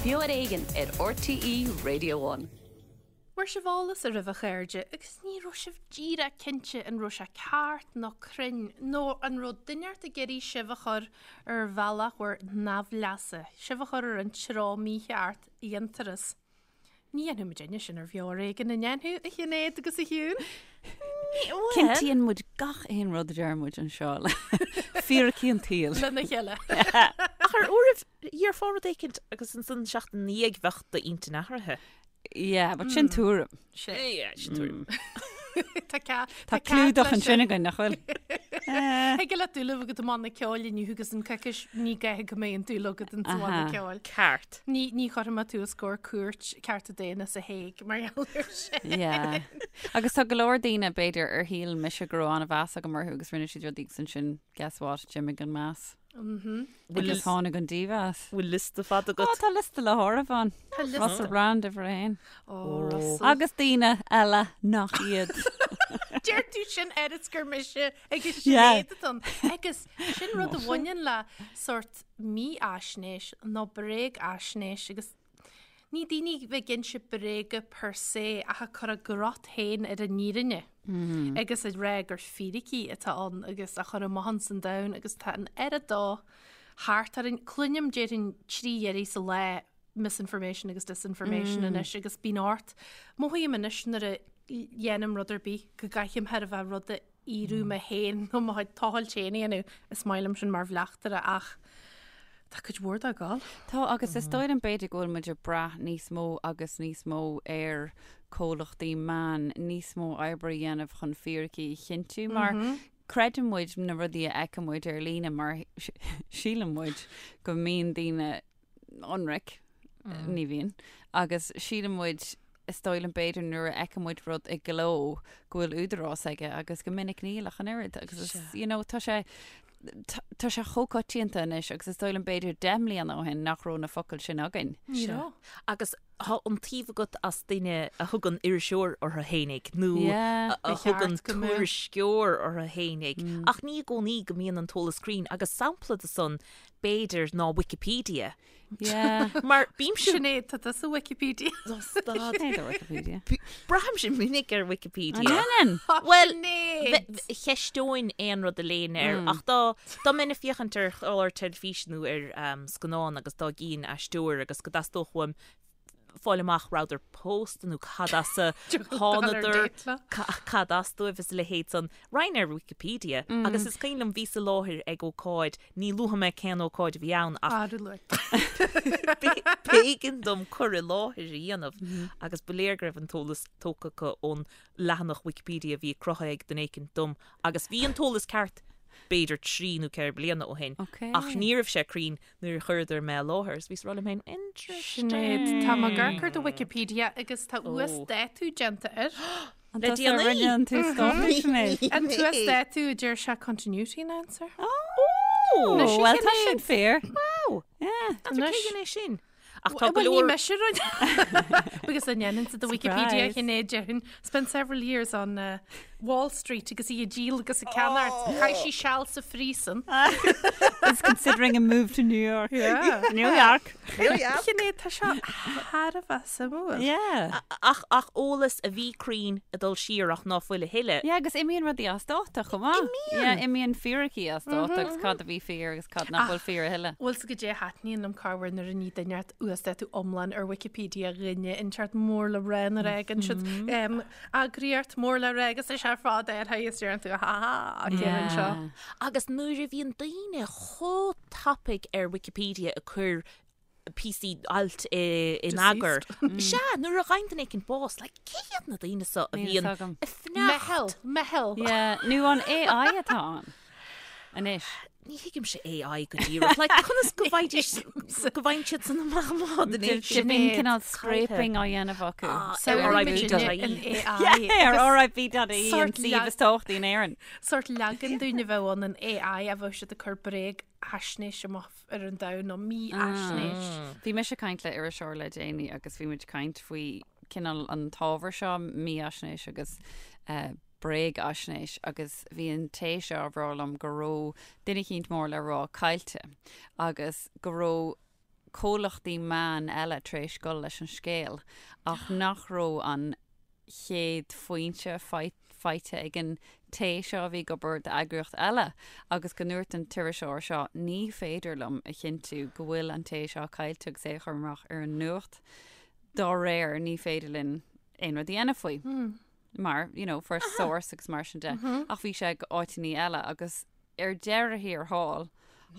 Beo ar Éigean ar RTÉ Radio One. Fuair sibh eolas oraibh a chairde agus ní raibh sibh díreach cinnte an raibh sé ceart nó cruinn nó an raibh duine inteacht ag iarraidh sibh a chur ar bhealach bhur n-aimhleasa, sibh a chur ar an treo mícheart a dhéantar as. Ní dhéanfaidh muidinne sin ar Bheo ar Éigean, an ndéanfaidh, a Shinéad agus a Shiún? Cinntíonn muid gach aon rud a deir muid anseo le fíricí an tsaoil. Lena chéile. Ach ar uairibh, dhéarfá rud éicint agus ansan seachtain ina dhiaidh bheadh d'intinn athraithe. Yeah, but sin tuairim. Sin. Yeah, sin tuairim. Tá cead Tá clúdach ansin againn, nach bhfuil? Thig leat dúil a bheith agat i mbanna ceoil inniu agus in coicís ní gá go mbeidh an dúil agat in sa bhanna ceoil. Ceart. Ní ní chuirfidh mé tú os comhair cúirt cearta daonna sa Hague mar gheall air sin. Yeah. Agus tá go leor daoine, b'fhéidir, ar shíl mise go raibh an-mheas agam orthu agus rinne siad rudaí agus ansin, guess what, d'imigh an meas. Agus tháinig an dímheas. Bhfuil liosta fada agat? Ó, tá liosta le háireamh ann. Tá liosta. Russell Brand uimhir a haon. Ó, Russell. Agus daoine eile nach iad. Deir tú sin ar is gur mise agus Sinéad atá ann. Agus sin rud a bhaineann le sórt mífhaisnéis nó bréagfhaisnéis agus Ní daoine a bheith ag inse bréaga per se ach ag cur a gcrot féin ar an fhírinne agus ag rá gur fíricí atá ann agus á chur amach ins an domhan agus tá an oiread dó thart orainn. Cluinim déarfainn 3 iarraidh sa lá misinformation agus disinformation anois agus bíonn ort. Mothaím anois nuair a dhéanaim rud ar bith go gcaithim thar a bheith rud a fhíorú mé féin nó mo chuid tochailt féin a dhéanamh. Is maith liom sin mar bhleachtaire ach tá cuid mhór dá gabháil. Tá agus is dóigh liom b'fhéidir go bhfuil muid ag brath níos mó agus níos mó ar comhlachtaí meán níos mó oibre a dhéanamh chun fíricí a chinntiú mar creideann muid na rudaí a fheiceann muid ar líne mar síleann muid go mbíonn daoine ionraic, ní bhíonn, agus síleann muid, is dóigh liom b'fhéidir nuair a fheiceann muid rud i gcló go bhfuil údarás aige agus go minic níl ach an oiread agus is, you know, tá sé, tá sé chomh coitianta anois agus is dóigh liom b'fhéidir 10 mbliana ó shin nach raibh na focail sin againn. Ní raibh. Agus tá iontaoibh agat as duine a thugann iriseoir orthu fhéinig nó Yeah. a Ba cheart thugann go mbeadh. tuairisceoir orthu fhéinig ach ní i gcónaí go mbíonn an t-eolas cruinn agus sampla de san b'fhéidir, ná Wikipedia. Yeah. Mar bímse... Sinéad, tá tusa Wikipedia. Stad. Sinéad ar Wikipedia. Braithimse minic ar Wikipedia. An ndéanann? Bhuel, Sinéad! cheisteoinn aon rud a léinn air, ach dá dá mbeinn ag féachaint ar chlár teilifíse nó ar scannán agus dá gcífinn aisteoir agus go dteastódh uaim fáil amach rabhadar pósta nó cad as a thánadar, cad as dóibh is a leithéid san. Raghainn ar Wikipedia agus is cuimhin liom bhíos i láthair ag ócáid, ní luafaidh mé cén ócáid a bhí ann ach b'éigean dom cur i láthair a dhéanamh agus ba léir go raibh an t-eolas tógtha acu ón leathanach Wikipedia a bhí cruthaithe ag duine éicint dom agus bhí an t-eolas ceart b'fhéidir 3 nó 4 bliana ó shin ach ní raibh sé cruinn nuair a chuireadar mé i láthair is bhíos ag rá liom féin, interesting. Sinéad, tá mé ag amharc ar do Wikipedia agus tá uasdátú déanta air. An Le tusa a déanaí. rinne an t-uasdátú, Sinéad? An t-uasdátú a deir sé continuity announcer. Ó! Anois, Bhuel, tá Sinéad. sin fíor. Wow! Yeah. N'fheadar cé dhein é sin. Ach tá go Bhuel, ní leor... mise a rinne. Because an ndéanann sa do Wikipedia Surprise. Sinéad déarfainn spent several years on uh, Wall Street agus í ag díol agus ag ceannacht. Chaith sí seal sa phríosún. Is considering a move to New York. Yeah. New York. Sinéad, tá seo thar a bheith suimiúil. Yeah. Ach, ach eolas a bhí cruinn ag dul siar ach ná fuil a thuilleadh. Yeah, agus imíonn rudaí as dáta chomh maith. Imíonn! Yeah, imíonn fíricí as dáta agus cad a bhí fíor agus cad nach bhfuil fíor a thuilleadh. Bhfuil 's agat goidé a thaitníonn liom corruair nuair a ní duine inteacht uasdátú iomlán ar Wikipedia dhuine inteacht mór le rá nuair a fhágann siad eagraíocht mór le rá agus is ar fad ar is deireann tú ha ha céard anseo. Agus nuair a bhíonn daoine chomh tapaidh ar Wikipedia ag cur píosaí ailt in eagar. Sea, nuair a fhaigheann duine éicint bás, like, cé hiad na daoine seo a Níl bhíonn fhios agam. ag fanacht? Meitheal, meitheal. Yeah, nó an AI atá ann anois. Ní thuigimse AI go díreach. Like, conas go bhfaighidís, go bhfaigheann siad san amach má den Bíonn cineál scraping á dhéanamh acu. Ar RIP.ie. an AI. Yeah, ar RIP.ie an Sort suíomh is tábhachtaí in Éirinn. Sórt leagan dúinn a bheadh ann an AI a bheadh siad ag cur bréagfhaisnéis amach ar an domhan nó mífhaisnéis. Bhí mise ag caint le iriseoir le déanaí agus bhí muid ag caint faoi cineál an t-ábhar seo, mífhaisnéis agus bréagfhaisnéis agus bhí an té seo ag rá liom go raibh duine eicínt mór le rá caillte agus go raibh. comhlachtaí meán eile tar éis dul leis an scéal ach nach raibh an chéad foinse faighte ag an té seo a bhí ag obair d'eagraíocht eile agus go ndúirt an t-iriseoir seo ní féidir liom a chinntiú go bhfuil an té seo caillte agus é a chur amach ar an nuacht dá réir ní féidir linn aon rud a dhéanamh faoi. Mar, you know, first source agus mar sin de. Ach bhí sé ag áiteanna eile agus ar deireadh thiar thall,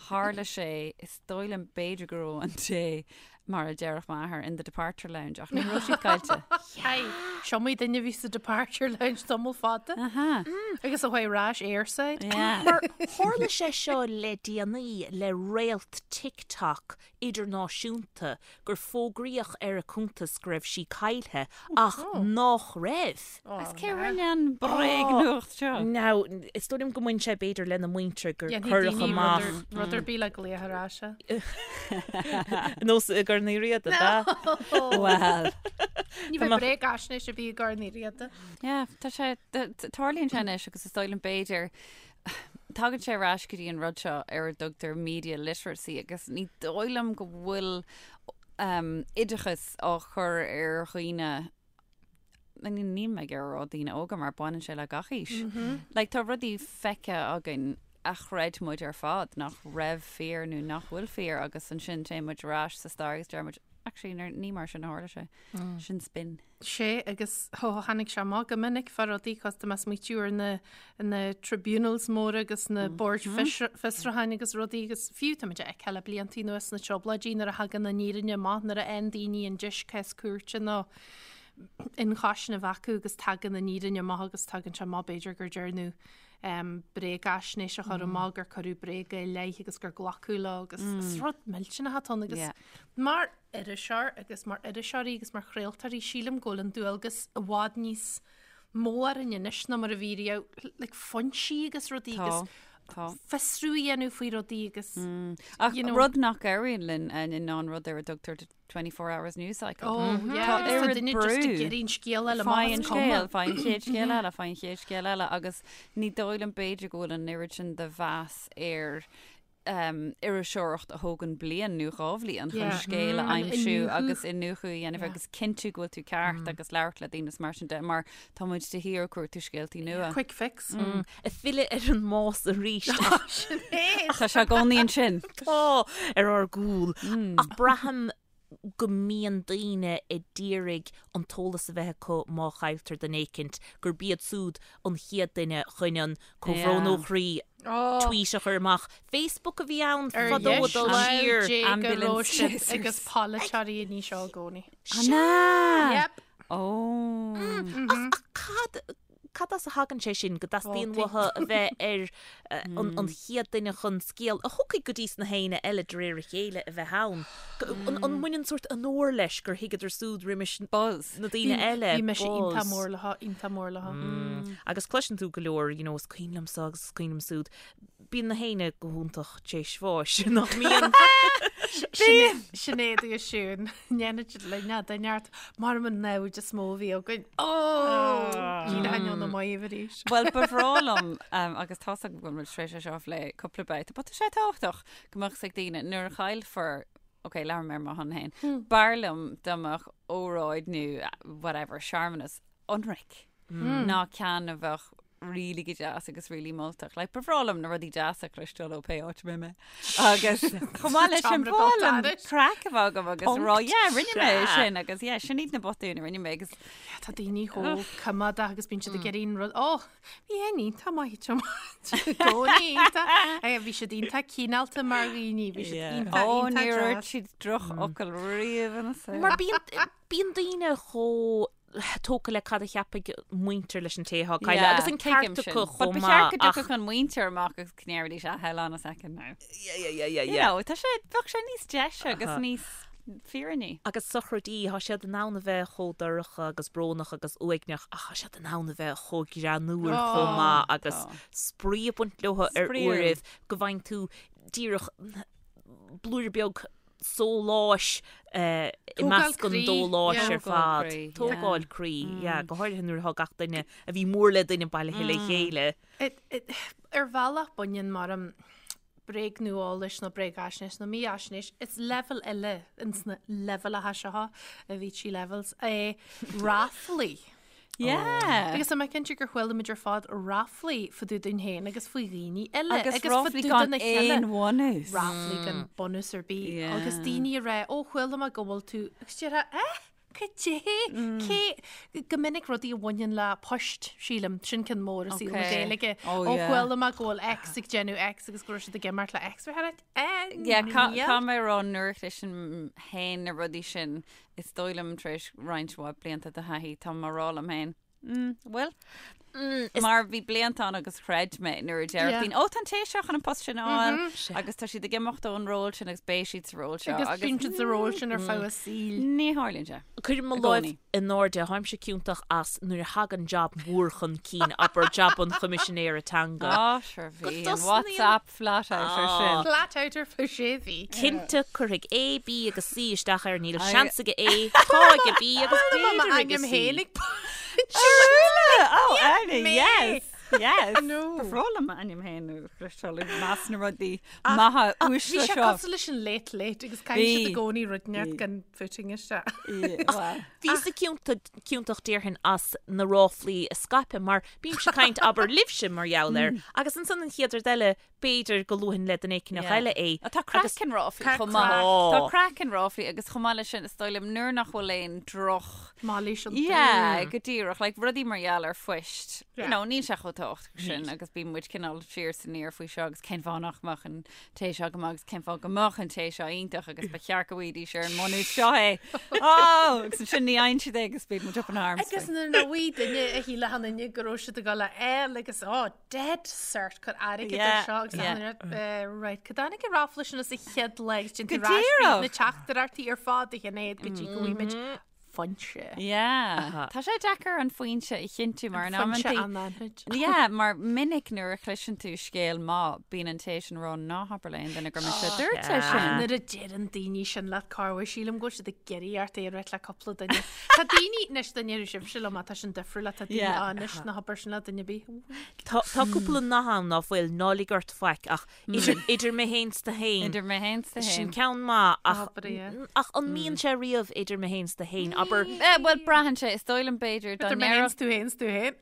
tharla sé, is dóigh liom b'fhéidir go raibh an té, mar a déarfadh m'athair, in the departure lounge ach ní raibh siad caillte. Hey, is iomaí duine a bhí sa departure lounge tamall fada. Aha. Agus a chuaigh ar ais airside. Yeah. Mar tharla sé seo le déanaí le réalt TikTok idirnáisiúnta gur fógraíodh ar a cuntas go raibh sí caillthe ach nách raibh. Agus cé rinne an bréagnuacht seo? Now, is dóigh liom go mbain sé b'fhéidir lena muintir gur cuireadh amach. Rud ar bith le glaoch ar ais. Nós i gCorn Uí Riada, ab ea? Well. Ní bheidh bréagaisnéis a bhí i gCorn Uí Riada. Yeah, tá sé, tarlaíonn sé anois agus is dóigh liom b'fhéidir Tagann sé ar ais go dtí an rud seo ar a dtugtar media literacy agus ní dóigh liom go bhfuil oideachas á chur ar dhaoine níl mé ag rá daoine óga mar baineann sé le gach aois. Like tá rudaí feicthe againn a chreid muid ar fad nach raibh fíor nó nach bhfuil fíor agus ansin téann muid ar ais sa stair agus deir muid actually ní mar sin a tharla sé. Sin spin. Sé agus tháinig sé amach go minic fá rudaí cos tá mé ag smaoitiú ar na na tribunals móra agus na boird fiosrúcháin agus rudaí agus fiú tá muid a fheiceáil le bliantaí anuas sna trioblóidí nuair a thagann an fhírinne amach nuair a fhaigheann daoine an deis cás cúirte nó ionchúiseamh a bheith acu agus tagann an fhírinne amach agus tagann sé amach b'fhéidir gur dearnadh bréagaisnéis a chur amach gur cuireadh bréaga i leith agus gur glacadh leo agus is rud millteanach atá ann agus mar iriseoir agus mar iriseoirí agus mar chraoltóirí, sílim go bhfuil an dualgas i bhfad níos mó orainn anois ná mar a bhí riamh, like foinsí agus rudaí agus Tá. fiosrú a dhéanamh faoi rudaí agus Ach you know. rud nach éiríonn linn ná an rud ar a dtugtar the 24 hours news cycle. Oh, yeah, Tá agus tá oiread duine just ag brú. iarraidh an scéal eile amach Faigh an is cuma. scéal, faigh an chéad scéal eile, faigh an chéad scéal eile agus ní dóigh liom b'fhéidir go bhfuil an oiread sin de mheas ar iriseoireacht a thógann bliain nó 2 bhliain chun scéal a aimsiú agus iniúchadh a dhéanamh agus cinntiú go bhfuil tú ceart agus labhairt le daoine is mar sin de mar tá muid de shíor ag cuartú scéaltaí nua. Quick fix. Ag filleadh ar an mbás arís. Sin é. Tá sé i gcónaí ansin. Tá, ar ár gcúl. Ach braithim go mbíonn daoine ag iarraidh an t-eolas a bheith acu má chailltear duine éicint, gurb iad súd an chéad duine chun an comhbhrón ó chroí tweet a chur amach. Facebook a bhí ann fadó ag dul siar. Ambulance chasers. Agus polaiteoirí ní seo i gcónaí. An ea? Yep. Ó. Ach cad Cad as a thagann sé sin, go dteastaíonn uathu a bheith ar an chéad duine chun scéal a thiocfaidh go dtí sna héinne eile de réir a chéile a bheith ann? An mbaineann sórt onóir leis gur thuigeadar súd roimis Buzz. na daoine eile? Bhí mise iontach mór leo, iontach mór leo. Agus cloiseann tú go leor, you know, is cuimhin liomsa agus is cuimhin liom súd. Bíonn na héinne go hiontach tar éis bháis, nach mbíonn? Sinéad agus Siún, ndéanfaidh siad linn ná duine ort, mar an namhaid is mó a bhí againn. Ó! Ní hainneoin na maíomh arís. Bhuel, ba bhreá liom, agus tá's agam go bhfuil muid tar éis é seo a phlé cúpla babhta, but tá sé tábhachtach go mbeadh 's ag daoine nuair a chaillfear, ok, labhraím ar mo shon féin, b'fhearr liom dá mbeadh óráid nó whatever, searmanas ionraic ná ceann a bheadh really go deas agus really moltach. Like, ba bhreá liom na rudaí deasa a chloisteáil ó pé áit a mbeidh mé. Agus chomh maith leis sin, ba bhreá liom craic a bheith agam agus rá, yeah, rinne mé é sin agus yeah, sin iad na botúin a rinne mé agus Tá daoine chomh coimeádach agus bíonn siad ag iarraidh an rud, ó, bhí é iontach maith i gcónaí iontach. Bhí siad iontach cineálta mar dhaoine, bhí siad iontach, Ó, iontach níor deas. dhúirt siad drochfhocal riamh ina saol. Mar bíonn bíonn daoine chomh tógtha le cad a cheapfaidh muintir leis an té atá caillte agus an ceart acu chomh maith. Ba cheart go dtiocfadh an mhuintir amach agus go ndéarfaidís ah, hold on a second now. Yeah, yeah, yeah, yeah, You yeah. know, tá sé, bheadh sé níos deise agus níos fírinní. Agus sochraidí, tá siad in ann a bheith chomh dorcha agus brónach agus uaigneach ach tá siad in ann a bheith chomh greannmhar chomh maith agus spraoi ag baint leo ar uairibh go bhfaigheann tú díreach blúire beag sóláis i measc an dóláis ar fad. Tógáil croí, yeah, go háirithe nuair atá gach duine a bhí mór le duine bailithe le chéile. Ar bhealach baineann mar. bréagnuaeolais nó bréagaisnéis nó mífhaisnéis, is leibhéal eile ins na leibhéalacha seo, a Avicii levels, é ráflaí. Yeah. Agus tá mé cinnte gur chuala muid ar fad ráflaí fá dtaobh dúinn féin agus faoi dhaoine eile. Agus ráflaí gan aon bhunús. Ráflaí gan bunús ar bith. Yeah. Agus daoine ag rá, ó chuala mé go bhfuil tú, agus déarfá, eh? Cad é? Cé go minic rudaí a bhaineann le poist, sílim, sin ceann mór i saol na Gaeilge. Ó chuala mé go bhfuil X ag déanamh X agus go raibh siad ag imeacht le X. Eh, Caithfidh mé a rá nuair a chloisim féin na rudaí sin, is dóigh liom tar éis roinnt mhaith blianta de thaithí, tá mé ag rá liom féin, Mm, bhfuil? Mar bhí blianta ann agus chreid mé nuair a déarfadh daoine, ó tá an té seo chun an post sin a fháil agus tá siad ag imeacht ón ról sin agus beidh siad sa ról seo. Agus bíonn siad sa ról sin ar feadh a saoil. Ní tharlaíonn sé. Cuirim mo láimh in airde, táimse ciontach as nuair a thagann jab mór chun cinn, abair jab an Choimisinéara Teanga. Á, sure bhí an WhatsApp flat out ar sin. Flat out ar feadh sé mhí. Cinnte, cuirfidh A, B agus C isteach air, níl seans aige A, tá aige B agus b'fhéidir aige C. Oh, Anna, yes! Yes! Ba bhreá liom m'ainm féin a chloisteáil i measc na rudaí maithe uaisle Bhí sé seo. cosúil leis an Late Late agus caithfidh siad i gcónaí rud inteacht gan footing isteach. Bhíos-sa ciontach déarfainn as na ráflaí a scaipeadh mar bímse ag caint abair libhse mar gheall air agus ansan an chéad rud eile b'fhéidir go luafainn le duine éicneach eile é. Tá craic in ráflaí chomh maith. Tá craic in ráflaí agus chomh maith leis sin is dóigh liom nuair nach bhfuil aon droch. Mailís iontu. Yeah, go díreach. Like rudaí mar gheall ar phoist. You know, níl sé chomh tábhachtach sin agus bíonn muid cineál siar is aniar faoi seo agus cén fáth nach mbeadh an té seo go maith agus cén fáth go mbeadh an té seo iontach agus ba cheart go bhfaighidís ar an mbunús seo é. Oh! Agus ansin ní fhaigheann siad é agus bíonn muid up in arms. Agus nuair nach bhfaighidh duine a shílfeadh an duine go raibh siad ag dul a fháil agus oh, dead cert cur airgead ar seo agus yeah. right cad tháinig an ráfla sin as a chéad lá agus déantar Go díreach. na teachtaireachtaí ar fad a Shinéad go dtí go bhfuimid foinse. Yeah. Tá sé deacair an foinse a chinntiú mar in Foinse amantaí. anaithnid. Yeah, mar minic nuair a chloiseann tú scéal maith, bíonn an té sin ag rá ná habair le aon duine gur mise a dúirt é sin. Nuair a deireann daoine sin leat cá bhfuil sílim go bhfuil siad ag iarraidh ort é a ráit le cúpla duine. Tá daoine, anois duine ar sibhse liom, tá sin difriúil, tá daoine Yeah. á anois ná habair sin le duine ar bith. Tá tá cúpla nath ann ná fuil ná lig ort faic ach idir idir mé féin 's tu féin. Idir mé féin 's tu Sin féin. ceann maith ach Abair é. ach an mbíonn sé riamh idir mé féin 's tu féin abair Eh, bhuel, braitheann sé, is dóigh liom b'fhéidir dá Idir mé féin ndéarfadh 's tú féin 's tú féin.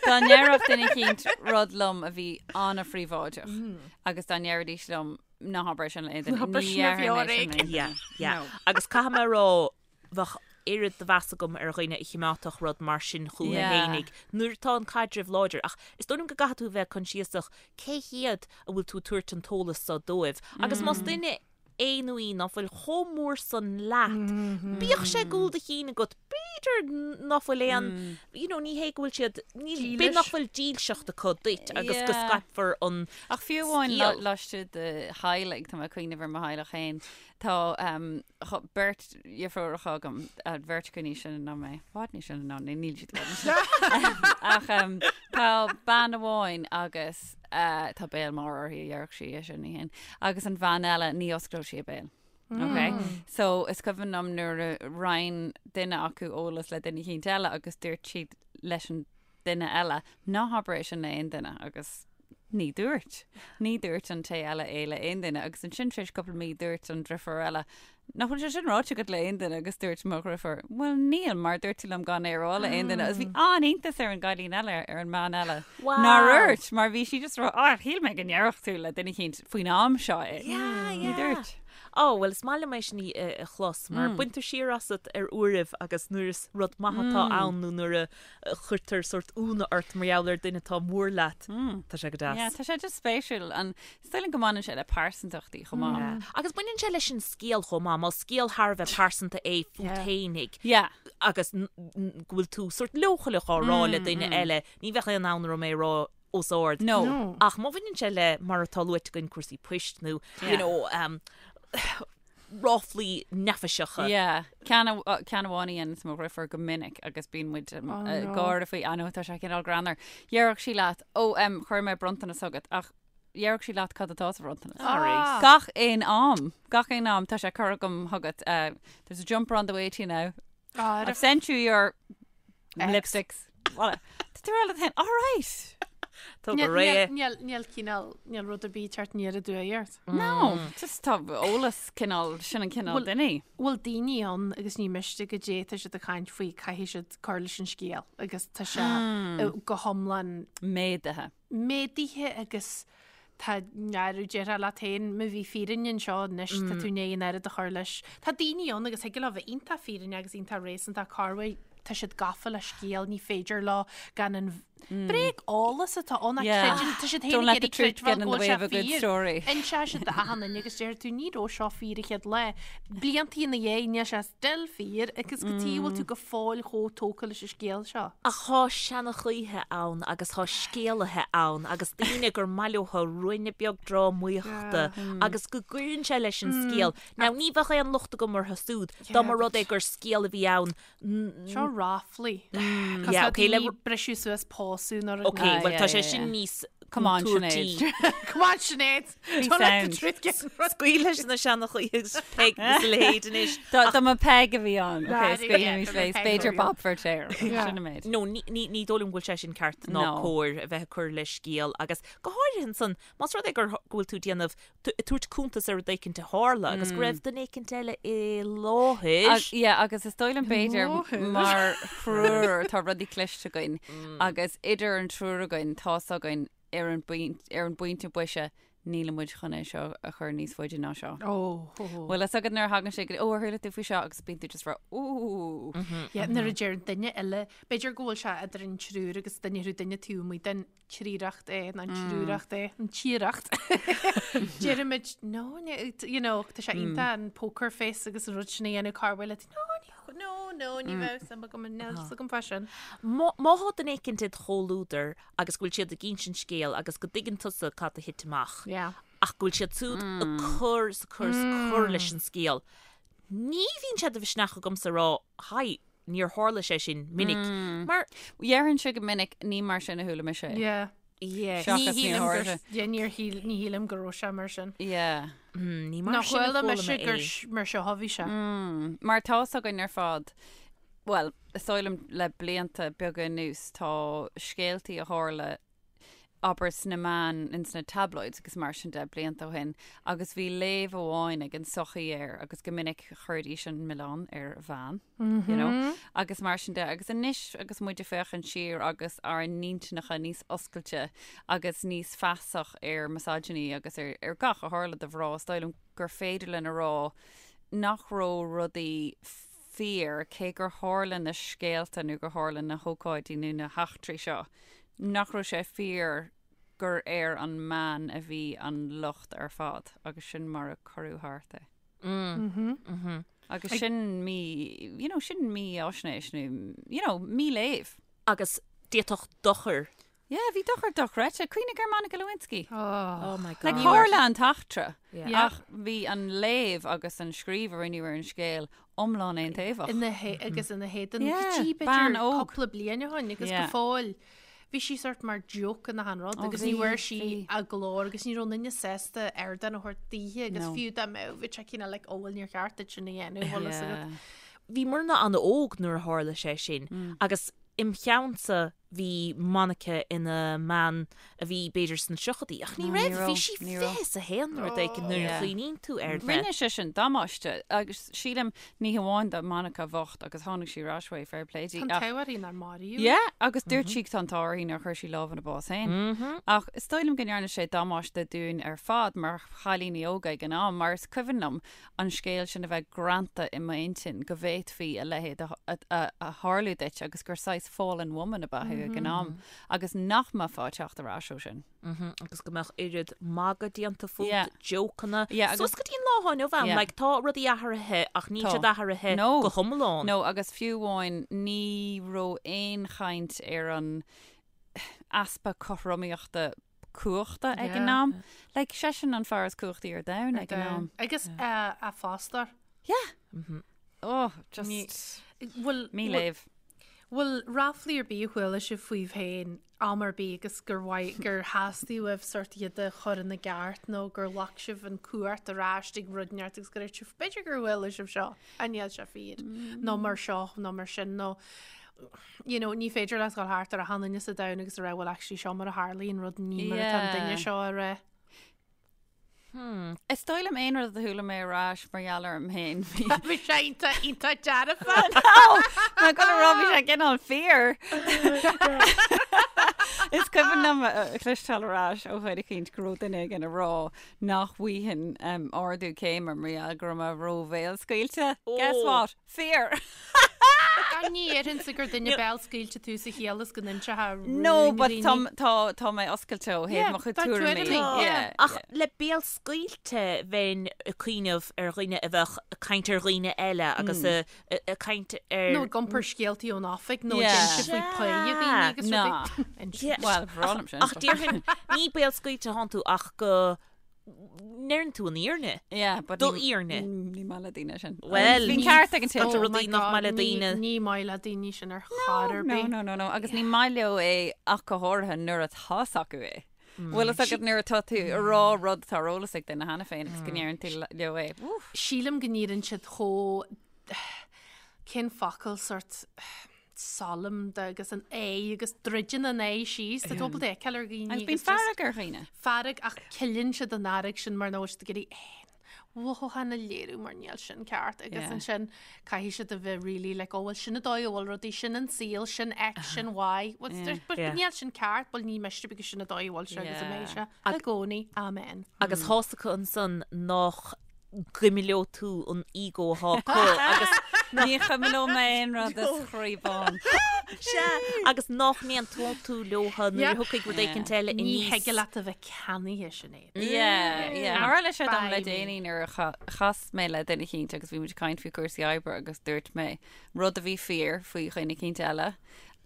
dá ndéarfadh duine eicínt rud liom a bhí an-phríobháideach agus dá ndéarfaidís liom ná habair é sin le aon duine, Ná habair ní sin ar dhéarfainn bheo é sin le ar aon duine. Yeah, yeah. No. Agus caithfidh mé a rá bheadh oiread de mheas agam ar dhuine a chimeádfadh rud mar sin chucu Yeah. fhéinig nuair atá an caidreamh láidir ach is dóigh liom go gcaithfidh tú a bheith coinsiasach cé hiad a bhfuil tú ag tabhairt an t-eolas so dóibh agus más duine é nó í ná fuil chomh mór san leat bíodh sé i gcúl do chinn agat b'fhéidir ná fuil aon you know ní hé go bhfuil siad ní Dílis. b'fhéidir nach bhfuil dílseacht acu duit agus go Yeah. scaipfear an Ach fiú amháin scéal. laistigh de theaghlaigh, tá mé ag cuimhneamh ar mo theaghlach féin, Tá beirt dheirfiúracha agam, beirt acu níos sine ná mé, i bhfad níos sine ná mé, níl siad i bhfad níos sine. Ach tá bean amháin agus tá béal mór uirthi a dhéarfadh sí é sin, ní hin. Agus an bhean eile, ní osclódh sí a béal. Ok? So is cuimhin liom nuair a roinn duine acu eolas le duine eicínt eile agus dúirt siad leis an duine eile, ná habair é sin le aon duine agus ní dúirt. Ní dúirt an té eile é le aon duine agus ansin tar éis cúpla mí dúirt an driofúr eile, nach bhfuil sé sin ráite agat le aon duine agus dúirt mo dhriofúr, bhuel níl mar dúirt tú liom gan é a rá le aon duine agus bhí an-iontas ar an gcailín eile, ar an mbean eile nár dhúirt mar bhí sí just ag rá, ah shíl mé go ndéarfadh tú le duine eicínt faoin am seo é. Yeah, Ní yeah. dúirt. Ó, bhuel is maith liom é sin a chlos mar baintear siar asat ar uairibh agus nuair is rud maith atá ann nó nuair a chuirtear sórt ionadh ort mar gheall ar duine atá mór leat. Tá sé go deas. Yeah, tá sé just spéisiúil. An is dóigh liom go mbaineann sé le pearsantachtaí chomh maith. Yeah. Agus baineann sé leis an scéal chomh maith. Más scéal thar a bheith pearsanta é fút Yeah. fhéinig Yeah. agus n- n- go bhfuil tú sórt leochaileach á rá le duine eile, ní bheadh aon fhonn orm é a rá os ard. No. No. Ach má bhaineann sé le, mar atá luaite againn, cúrsaí poist nó, you Yeah. know, um, ráflaí neafaiseacha. Yeah. Ceann ceann amháin a dhéananns mo dhriofúr go minic agus bíonn muid um, Oh, uh, no. gáire faoi I know tá sé cineál greannmhar. Déarfadh sí leat, ó um, chuir mé bronntanas chugat ach déarfadh sí leat cad atá sa bhronntanas. Ah. Gach aon am, gach aon am tá sé curtha agam chugat. Uh, there's a jumper on the way to you now. Ah, I've sent you your X. lipsticks. Well, Tá tú le all right. Tá go réidh. Níl, níl cineál, níl rud ar bith ag teacht aniar aduaidh ort. No, just tá eolas cineál, sin an cineál duine. Bhfuil daoine ann agus ní miste goidé tá siad ag caint faoi caithfidh siad cur leis an scéal agus tá sé go hiomlán Méadaithe. méadaithe agus tá nearú déarfá leat féin má bhí fírinne anseo anois tá tú i ndiaidh an oiread a chur leis. Tá daoine ann agus thig leo bheith iontach fírinneach agus iontach réasúnta corruair tá siad gafa le scéal ní féidir leo gan an bréag eolas atá ann ach creideann tá siad féin ag iarraidh creidbheáil go bhfuil sé fíor. Inseoidh siad d'achan duine agus déarfaidh tú ní raibh seo fíor an chéad lá. Blianta ina dhiaidh níl sé still fíor agus cad chuige a bhfuil tú go fóill chomh tógtha leis an scéal seo. Ach thá seanchaithe ann agus thá scéalaithe ann agus daoine gur maith leotha ruainne beag drámaíochta agus go gcuireann sé leis an scéal. Now ní bheadh aon locht agam orthu súd dá mba rud é gur scéal a bhí ann Seo ráflaí. Yeah, okay, le briseadh suas pósadh nó rud. Okay, well tá sé sin níos Come on, Sinéad. Come on, Sinéad. Don't let the truth get in front. Scaoil leis na seanchaithe agus Peig agus a leithéid anois. Dá mba Peig a bhí ann. Okay, scaoilimis léi. B'fhéidir Bob Feirtéar. Sin an méid. No, ní dóigh liom go bhfuil sé sin ceart ná cóir a bheith ag cur le scéal agus go háirithe ansan, más rud é gur go bhfuil tú ag déanamh ag tabhairt cuntas ar rud éicint a tharla agus go raibh duine éicint eile i láthair. Yeah, agus is dóigh liom b'fhéidir mar thriúr tá rudaí cliste againn agus idir an triúr againn tá's againn ar an ar an bpointe boise níl muid chun é seo a chur níos faide ná seo. Ó, ó. Bhfuil fhios agat nuair a thagann sé go ó ar chuala tú faoi seo agus bíonn tú just rá ó. Yeah, nuair a deir duine eile, b'fhéidir go bhfuil sé idir an triúr agus duine thú duine taobh amuigh den tríreacht é, ná an triúreacht é, an tíreacht. Deirimid, no, you know, tá sé iontach an poker face agus an rud sin a dhéanamh corruair le, no, no, no, ní bheadh suim agam, níl fhios agam fá sin. Má thá duine éicint id chomhluadar agus go bhfuil siad ag insint scéil agus go dtuigeann tusa cad a thit amach, ach go bhfuil siad súd ag cur 's ag cur 's ag cur leis an scéal, ní bhíonn sé de mhisneach agamsa a rá, haigh, níor tharla sé sin minic mar. Déarfainnse go minic, ní mar sin a chuala mise é. Yeah. Yeah. Seachas Ní níor shílim gur, tharla. yeah, níor shíl, ní shílim go raibh sé mar sin. Yeah. Ní mar Ná sin a chuala chuala mise mé gur é. sh- mar seo a bhí sé. Mar tá's againn ar fad, bhuel, is dóigh liom le blianta beaga anuas tá scéaltaí a tharla abair sna meáin, ins na tabloids agus mar sin de blianta ó shin agus bhí léamh amháin ag an sochaí air agus go minic chuiridís an milleán ar bhean, you know, agus mar sin de. Agus anois agus muid ag féachaint siar agus ár n-intinneacha níos oscailte agus níos feasach ar misogyny agus ar, ar gach a tharla do mhná, is dóigh liom gur féidir linn a rá nach raibh rudaí fíor, cé gur tharla na scéalta nó gur tharla na hócáidí nó na heachtraí seo, nach raibh sé fíor gur ar an mbean a bhí an locht ar fad agus sin mar a cuireadh thart é. Agus sin mí, you know, sin mífhaisnéis nó, you know, míléamh. Agus d'fhéadfadh dochar Yeah, bhí dochar dochreidte. Cuimhnigh ar Monica Lewinsky. Oh my Like, God. tharla an t-eachtra, Yeah. ach bhí an léamh agus an scríobh a rinneadh ar an scéal iomlán aontaobhach. Ina hé- agus ina héadan Yeah, go dtí bean b'fhéidir óg. cúpla bliain ó shin agus go Yeah. fóill bhí sí sort mar joke in achan rud Oh, agus ní bhí, bhfuair sí bhí. a glór agus ní raibh aon duine sásta ardán a thabhairt daoithe agus No. fiú dá mbeadh bhí sé cineál like ó bhuel níor cheart duit sin a dhéanamh bhfuil fhios agat. Yeah. Bhí muidne an-óg nuair a tharla sé sin agus im cheannsa bhí Monica ina mbean a bhí b'fhéidir sna tríochaidí, ach ní raibh, bhí sí 21 nó rud éigin nuair a chuimhníonn tú air. Rinne sé sin damáiste agus sílim ní hamháin do Monica bhocht agus tháinig sí ar ais uaidh, fair play di. Tá an t-ádh uirthi nár maraíodh í. Yeah, agus dúirt sí tá an t-ádh uirthi nár chuir sí lámh ina bás féin. Ach is dóigh liom go ndearna sé damáiste dúinn ar fad mar chailíní óga ag an am mar is cuimhin liom an scéal sin a bheith greanta i m'intinn go bhféadfaí a leithéid a tharlú duit agus gur saghas fallen woman ab ea thú ag an am agus nach mbeifeá ag teacht ar ais ó sin. Agus go mbeadh oiread magadh déanta fút, jócanna, suas go dtí an lá atá inniu ann, like tá rudaí athraithe ach níl siad athraithe go hiomlán. No, agus fiú amháin ní raibh aon chaint ar an easpa cothromaíochta cumhachta ag an am. Like, seisean an fear is cumhachtaí ar domhan ag an am. Agus a fostóir. Yeah. Oh, just Bhfuil míléamh. Bhfuil ráflaí ar bith a chuala sibh faoibh féin am ar bith agus gur mhaith gur theastaigh uaibh sort iad a chur ina gceart nó gur ghlac sibh an cumhacht ar ais ag rud inteacht agus gur sibh b'fhéidir gur chuala sibh seo ach níl sé fíor nó mar seo nó mar sin nó. you know, ní féidir leat dhul thart ar achan duine sa domhan agus a rá well actually seo mar a tharlaíonn rud ní mar atá an duine seo a rá. Hmm. Is dóigh liom aon rud a chuala mé ar ais mar gheall orm féin. Bhí sé iontach iontach dearfa. Má go raibh bhí sé cineál fíor. Is cuimhin liom a chloisteáil ar ais ó dhuine eicínt go raibh duine éigin ag rá nach bhfaighinn ardú céime mar gheall go raibh mé ró-bhéalscaoilte. Guess what? Fíor! Gan ní déarfainnse gur duine béalscaoilte tú sa chiall is go n-inseofá rúin No, but dhaoine. tá, tá, tá mé oscailte ó thaobh Yeah, mo chuid tá tuairimí. tuairimí, Yeah, yeah. Ach le béalscaoilte bheinn ag cuimhneamh ar dhuine a bheadh ag caint ar dhaoine eile agus ag caint ar... Nó ag iompar scéaltaí ón oifig nó ag Yeah. inse faoi pá dhaoine agus Ná. rudaí. Inse. Yeah. Bhuel, bhreá liom sin. Ach déarfainn, ní béalscaoilte thánn tú ach go ndeireann tú an fhírinne. Yeah, but Do ní- fhírinne. Ní maith le daoine sin. Well, Bíonn ní- ceart ag an té. Tá Oh rudaí my nach God, maith le ní- daoine. Ní maith le daoine sin ar chor ar No, bith. no, no, no. Agus ní maith leo é ach go háirithe nuair atá 's acu é. Bhfuil fhios agat nuair atá tú ag rá rud atá ar eolas ag duine cheana féin agus go ndeireann tú leo é. Oof. Sílim go n-éiríonn siad chomh cén focal sort solemn de agus an aghaidh agus druideann an aghaidh síos tá tú ábalta fheiceáil ar dhaoine Agus bíonn agus just fearg ar dhaoine. fearg ach ceileann siad an fhearg sin mar nach bhfuil siad ag iarraidh aon mhothúchán a léiriú mar níl sin ceart agus Yeah. ansin caithfidh siad a bheith really like oh well sin an dóigh a bhfuil rudaí sin an saol sin X sin Y What's Yeah. there- but Yeah. níl sin ceart bhuel ní miste because sin an dóigh a bhfuil sé agus a mbeidh Yeah. sé i gcónaí amen. Agus tá's acu ansan nach gcuimileodh tú an ego atá acu agus Ní chuimileoidh mé aon rud is chroí bán. Sea, agus nach n-aontódh tú leotha nuair a thiocfaidh rud éicint eile Ní aníos. thig leat a bheith ceannaithe Sinéad. Yeah, yeah. Tharla sé dom le Bye. déanaí nuair a chas mé le duine eicínt agus bhí muid ag caint faoi cúrsaí oibre agus dúirt mé rud a bhí fíor faoi dhuine eicínt eile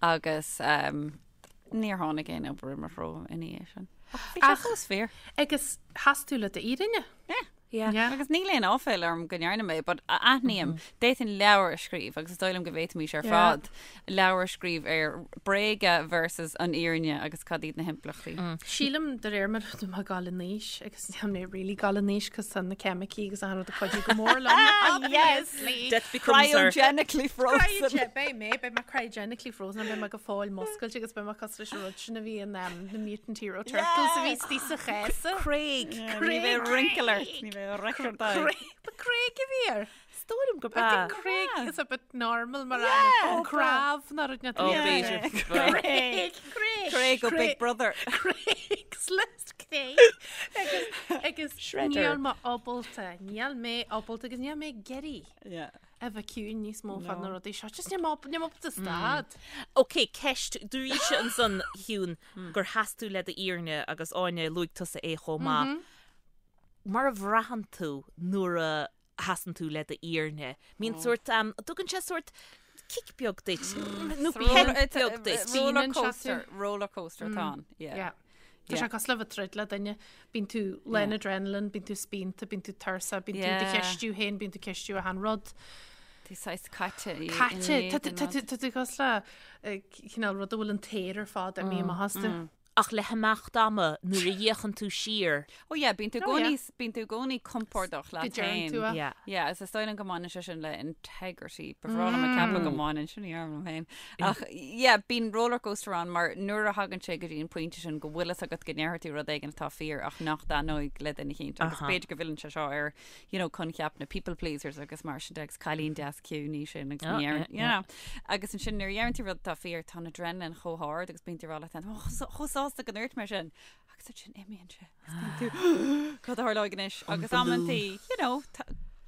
agus níor tháinig aon obair i mo threo ina dhiaidh sin. Ach bhí sé fós fíor. Agus sheas tú le d'fhírinne. Yeah. Yeah. Yeah. Agus níl aon áiféal orm go ndearna mé, but aithním, d'fhéadfainn leabhar a scríobh agus is dóigh liom go bhféadfaimis ar Yeah. fad leabhar a scríobh ar bréaga versus an fhírinne agus cad iad na himpleachtaí. Sílim de réir mar atá mé ag dul in aois agus níl mé really ag dul in aois cos tá na ceimicí agus an rud ag cuidiú go mór liom, obviously. Death becomes her. Cryogenically frozen. Cryogen, beidh mé, beidh mé cryogenically frozen, beidh mé go fóill muscailte agus beidh mé cosúil leis an rud sin a bhí in um, the Mutant Hero Turtles a bhí istigh sa chéasa. Craig. Ní bheidh wrinkle ort, ní bheidh record Craig, ba Craig a bhí air. Is dóigh liom gurb I ea. think Craig is a bit normal mar ainm. Crav ná rud Oh, b'fhéidir. Craig, Craig. Craig ó Big Brother. Craig's List Craig. Agus, agus Shredder. níl mé ábalta, níl mé ábalta agus níl mé ag iarraidh Yeah. a bheith ciúin níos mó fá na rudaí seo. Just níl mé ábalta, níl mé ábalta stad. Ok, ceist, dúraís ansan Shiún gur sheas tú le d'fhírinne agus Áine luaigh tusa é chomh maith. Mar a bhraitheann tú nuair a sheasann tú le d'fhírinne? Mbíonn sórt, tugann sé sórt kick beag duit, nó pep beag duit. Roller Spíonann sé coaster, tú. roller coaster atá ann. Yeah. Yeah. Tá sé cosúil le bheith ag troid le duine. Bíonn tú lán adrenaline, bíonn tú spíonta, bíonn tú tuirseach, bíonn tú do Yeah. cheistiú féin, bíonn tú ceistiú achan rud. Tú saghas caite. i- Caite, ina tá tú- éadan tá rud. tú- tá tú cosúil le eh, cineál rud a bhfuil an t-aer ar fad imithe amach astu. Ach le himeacht ama nuair a fhéachann tú siar. Oh yeah, bíonn tú Oh, yeah. gcónaí, bíonn tú i gcónaí compordach leat Go deireann féin. tú é. Yeah. Yeah, is is dóigh liom go mbaineann sé sin le integrity. Ba bhreá liom a ceapadh go mbaineann sin ní liom féin. Ach yeah, bíonn roller coaster ann mar nuair a thagann sé go dtí an pointe sin go bhfuil fhios agat go ndéarfaidh tú rud éigin atá fíor ach nach dtaitneoidh le duine eicínt. Agus b'fhéidir go bhfilleann sé seo ar, you know, coincheap na people pleasers agus mar sin de agus cailín deas ciúin í sin agus Oh, ní deireann- yeah, you know. Agus ansin nuair a dheireann tú rud atá fíor tá an adrenaline chomh hard agus bíonn tú ag rá leat féin, "Oh, chomh sásta go ndúirt mé sin. Agus ansin imíonn sé. Agus bíonn tú, Cad a tharlóidh anois? Agus amantaí, you know,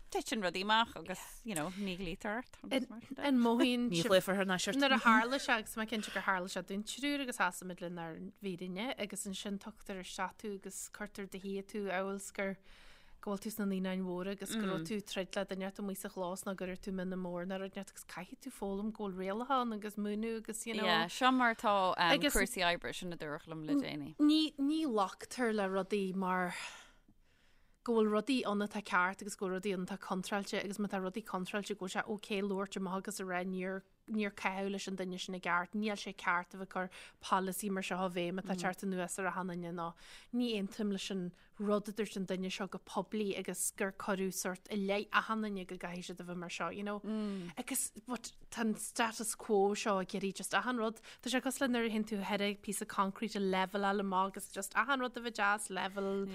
titeann rudaí amach agus, you know, ní ghlaoitear ort. agus mar sin de. An mothaíonn Ní sibh- ghlaofar thar n-ais ort. Nuair a tharla sé agus mé cinnte gur tharla sé dúinn triúr agus seasaimid lenár bhfírinne agus ansin tugtar isteach tú agus cuirtear i do shuí tú amhail is gur go bhfuil tú sna naíonáin mhóra agus go raibh tú ag troid le duine inteacht amuigh sa chlós nó go raibh tú mionn mór nó rud inteacht agus caithfidh tú foghlaim go bhfuil rialacha ann agus múineadh agus you know. Yeah, seo mar atá um, Agus- cúrsaí oibre sin a dúradh liom le déanaí. Ní, ní ghlactar le rudaí mar go bhfuil rudaí ann atá ceart agus go bhfuil rudaí ann atá contráilte agus má tá rudaí contráilte go bhfuil sé ok labhairt amach agus a rá níor. níor caitheadh leis an duine sin i gceart, níl sé ceart a bheith ag cur polasaí mar seo i bhfeidhm atá ag teacht anuas ar achan duine nó ní aontaím leis an rud a dúirt an duine seo go poiblí agus gur cuireadh sort i leith achan duine go gcaithfidh siad a bheith mar seo, you know. Agus but tá an status quo seo ag iarraidh just achan rud, tá sé cosúil le nuair a théann tú thar píosa concrete a leveláil amach agus just achan rud a bheith deas, level,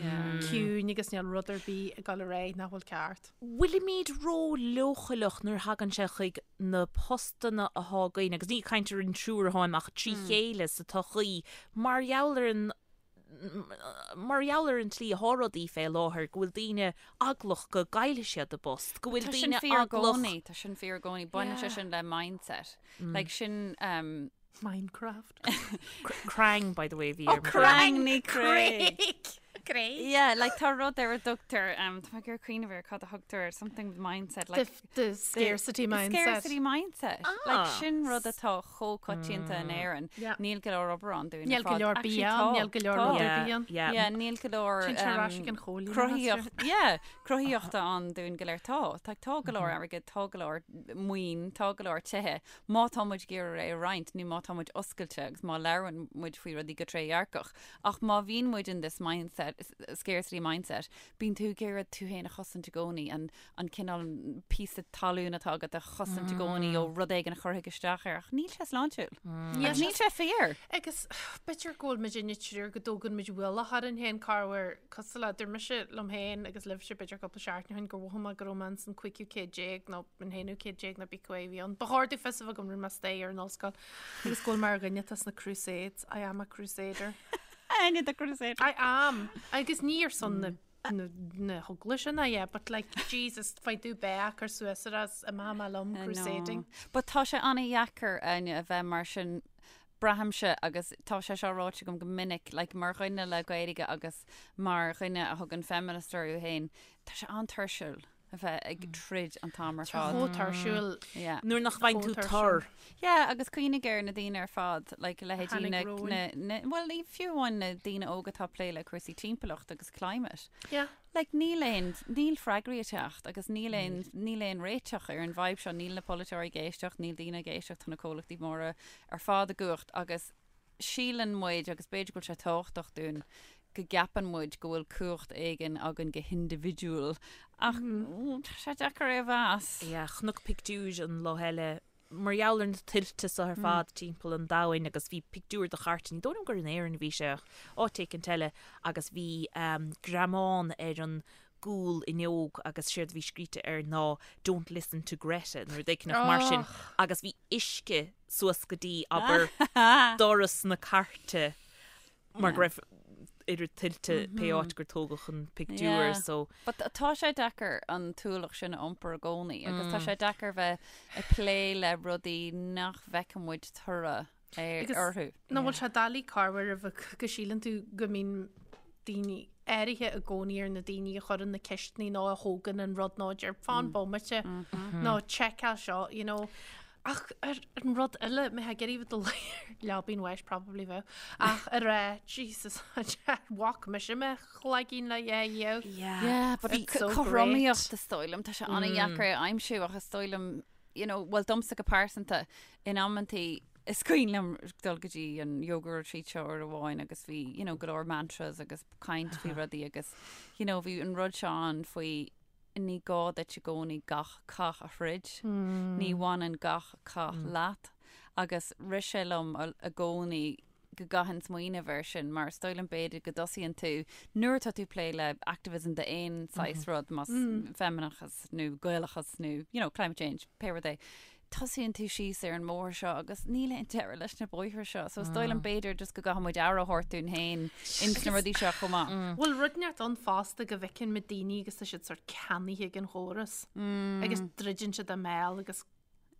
ciúin agus níl rud ar bith ag dul ar aghaidh nach bhfuil ceart. Bhfuilimid ró-leochaileach nuair a thagann sé chuig na postanna athá againn, agus ní ag caint ar an triúr atháim ach trí chéile sa tsochaí, mar gheall ar an mar gheall ar an tslí athá rudaí fé láthair, go bhfuil daoine eaglach go gcaillfidh siad a bpost, go bhfuil Tá sin daoine fíor i eaglach. gcónaí, tá sin fíor i gcónaí. Baineann sé sin le mindset. Like sin, um, Minecraft. Crang, by the way, bhí ar mo Crang ní Craig. Craig. Yeah, like tá rud ar a dtugtar, um, tá mé ag iarraidh cuimhneamh ar cad a thugtar ar something with mindset, like The, the scarcity mindset. Scarcity mindset. Like sin rud atá chomh coitianta in Éirinn. Yeah. Níl go leor obair ann dúinn Níl ar go fad. leor Actually, bia tá, ann, níl go leor tá. rud ar Yeah, bith ann. yeah. Yeah, níl go leor Téann sé ar ais ag an chóilíneachas, cruthaíocht, yeah, cruthaíochta ann dúinn go léir. Tá, tá, tá go leor airgid, tá go leor maoin, tá go leor tithe. Má tá muid ag iarraidh é a roinnt nó má tá muid oscailte agus má labhrann muid faoi rudaí go trédhearcach. Ach má bhíonn muid in this mindset, scarcity mindset, bíonn tú ag iarraidh tú féin a chosaint i gcónaí, an, an cineál píosa talún atá agat a chosaint i gcónaí ó rud éigin a chuirfidh isteach air. Ach níl sé sláintiúil. Níl Agus níl sé fíor. Agus b'fhéidir go bhfuil muid inne triúr go dtógann muid ualach orainn féin corruair cosúil le dúirt mise liom féin agus libhse b'fhéidir cúpla seachtain ó shin gur mhothaigh mé go raibh mé ins an cúigiú céad déag nó an haonú céad déag nó pé acu a bhí ann. Ba chóir domh fios a bheith agam rinne mé staidéar in ollscoil agus go bhfuil mé ar dhuine atá sna Crusades. I am a crusader. Áine the Crusader. I am. Agus ní ar son na na na heaglaise ná yeah, but like Jesus faoi do beach ar suas ar as imeoidh mé liom crusading. But tá sé an-dheacair Áine a bheith mar sin braithimse agus tá sé seo ráite agam go minic like mar dhuine le Gaeilge agus mar dhuine a thugann feminist orthu féin tá sé an-tuirsiúil a bheith ag troid an t-am ar Tá fad. chomh tuirsiúil. Yeah. Nuair nach bhfaigheann tú Chomh tuirsiúil. tor. Yeah, agus cuimhnigh ar na daoine ar fad, like leithéidí Tháinig na, romhainn. na, na, well, ní fiú amháin na daoine óga atá ag plé le cúrsaí timpeallacht agus climate. Yeah. Like níl aon, níl freagraí ag teacht agus níl aon, níl aon réiteach ar an bhfadhb seo, níl na polaiteoirí ag éisteacht, níl daoine ag éisteacht, tá na comhlachtaí móra ar fad i gcumhacht agus síleann muid, agus b'fhéidir go bhfuil sé tábhachtach dúinn, go gceapann muid go bhfuil cumhacht éigin againn go hindibhidiúil ach tá sé deacair é a mheas. Yeah, chonac pictiúr an lá eile mar gheall ar na tuilte seo ar fad timpeall an domhain agus bhí pictiúr de chairt, ní dóigh liom gur in Éirinn a bhí sé ach áit éicint eile agus bhí greamán ar an gcúl fhuinneog agus séard a bhí scríte air ná 'Don't listen to Greta' nó rud éicint mar sin agus bhí uisce suas go dtí, abair, doras na cairte mar go raibh oiread tuilte pé áit gur tógadh an pictiúr so. But tá sé deacair an t-ualach sin a iompar i gcónaí agus tá sé deacair bheith ag plé le rudaí nach bhfeiceann muid toradh orthu. Nach bhfuil sé doiligh corruair a bheith go síleann tú go mbíonn daoine áirithe i gcónaí ar na daoine a chuireann na ceisteanna nó a thógann an rud nó a deir fan bomaite nó seiceáil seo, you know. Ach ar an rud eile, mé ag iarraidh bheith do leabainn bháis probably bheadh. Ach ar a Jesus bhac mise mo chloigeann le yeah yeah. Yeah, but Bhí so cothromaíocht is dóigh liom, tá sé an-dheacair a aimsiú ach is dóigh liom, you know, well domsa go pearsanta, in amantaí is cuimhin liom dul go dtí an yoga retreat seo uair amháin agus bhí, you know, go leor mantras agus caint faoi rudaí agus, you know, bhí an rud seo ann faoi ní gá duit i gcónaí gach cath a throid, ní bhaineann gach cath leat agus rith sé liom i gcónaí go gcaithfinn smaoineamh air sin mar is dóigh liom b'fhéidir go dtosaíonn tú nuair atá tú ag plé le activism d'aon saghas rud, más feimineachas nó Gaelachas nó you know climate change, pé rud é, tosaíonn tú síos ar an mbóthar seo agus níl aon deireadh leis na bóithre seo. So is dóigh liom b'fhéidir just go gcaithfidh muid aire a thabhairt dúinn féin ins na rudaí seo chomh maith. Bhfuil rud inteacht ann fosta go bhfeiceann muid daoine agus tá siad sort ceannaithe ag an chóras agus druideann siad a mbéal agus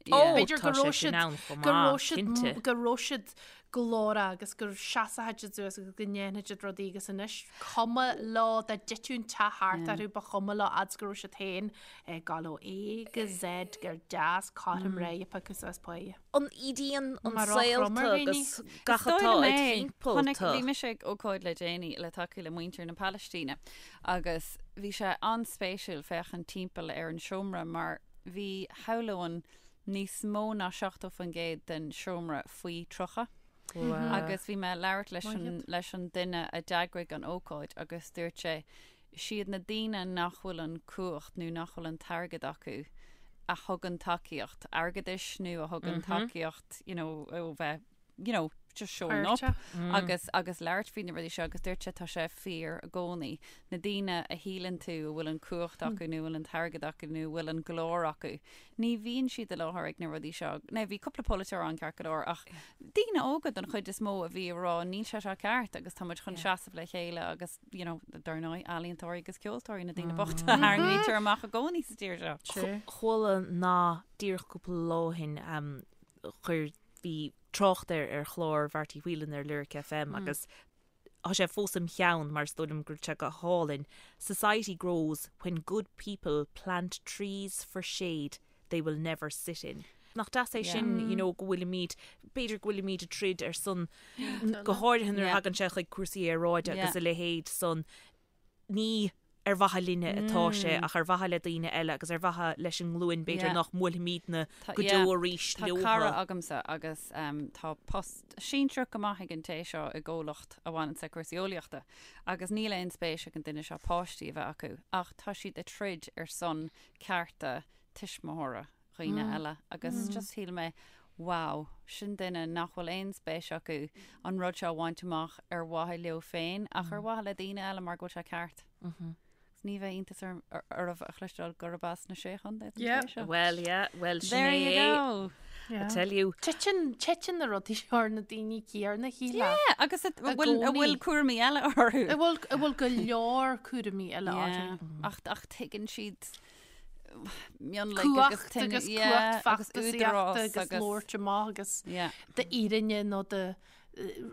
Ó, b'fhéidir tá go raibh sé sin siad ann chomh go raibh maith, siad cinnte. go raibh siad glórach agus go seasfaidh siad suas agus go ndéanfaidh siad rudaí agus anois cuma leo dá dtitfeadh an teach thart orthu ba chuma leo fhad is go raibh siad féin ag gabháil ó A go Z gur deas cothrom réidh a piocadh suas páighe. An ídíonn an Mar saol chrom ar tú dhaoine. agus gach atá id thimpeall Chonaic, tú. bhí mise ag ócáid le déanaí le tacú le muintir na Palaistíne agus bhí sé an-spéisiúil féachaint timpeall ar an seomra mar bhí shamhlóinn. níos mó ná 70% den seomra faoi 30. Agus bhí mé ag labhairt leis an, leis an duine a d'eagraigh an ócáid agus dúirt sé, siad na daoine nach bhfuil an cumhacht nó nach bhfuil an t-airgead acu a thugann tacaíocht airgeadais nó a thugann tacaíocht, you know, ó bheith you know, just showing up agus agus labhairt faoi na rudaí seo agus dúirt sé tá sé fíor i gcónaí. Na daoine a shíleann tú a bhfuil an cumhacht acu nó a bhfuil an t-airgead acu nó a bhfuil an glór acu, ní bhíonn siad i láthair ag na rudaí seo. Now bhí cúpla polaiteoir ann ceart go leor ach daoine óga don chuid is mó a bhí ag rá níl sé seo ceart agus tá muid chun seasamh le chéile agus you know, dar ndóigh ealaíontóirí agus ceoltóirí na daoine bochta a tharraingítear amach i gcónaí sa tír seo. Chuala nath díreach cúpla lá ó shin chuir bhí trácht air ar chlár Bharty Whelan ar Lyric FM agus tá sé fós im cheann mar is dóigh liom go raibh sé go hálainn, Society grows when good people plant trees for shade they will never sit in. Nach deas é sin, you know, go bhfuilimid, b'fhéidir go bhfuilimid ag troid ar son, go háirithe nuair a thagann sé chuig cúrsaí aeráide agus a leithéid san, ní ar mhaithe linne atá sé ach ar mhaithe le daoine eile agus ar mhaithe leis an nglúin b'fhéidir nach mbuailfimidne go deo arís Tá cara agamsa agus tá post sinsearach go maith ag an té seo i gcomhlacht a bhaineann le cúrsaí eolaíochta agus níl aon spéis ag an duine seo páistí a bheith acu ach tá siad ag troid ar son cearta tuismitheora. dhaoine eile agus just shíl mé wow, sin duine nach bhfuil aon spéis acu an rud seo a bhaint amach ar mhaithe leo féin ach ar mhaithe le daoine eile mar go bhfuil sé ceart. Agus ní bheidh iontas oraibh a chloisteáil gurb as na Sé Chontae don Yeah. té seo. Well, yeah, well, sin There you é. go. I tell you. Titeann, titeann na rudaí seo ar na daoine céarna, shílfeá. Yeah, agus a I bhfuil a bhfuil gcónaí. cúraimí eile orthu. A bhfuil, a bhfuil go leor cúraimí eile orthu. Yeah. Ach, ach tuigeann siad mionlaigh agus Cumhacht agus cumhacht feachtasaíochta agus labhairt amach agus d'fhírinne nó do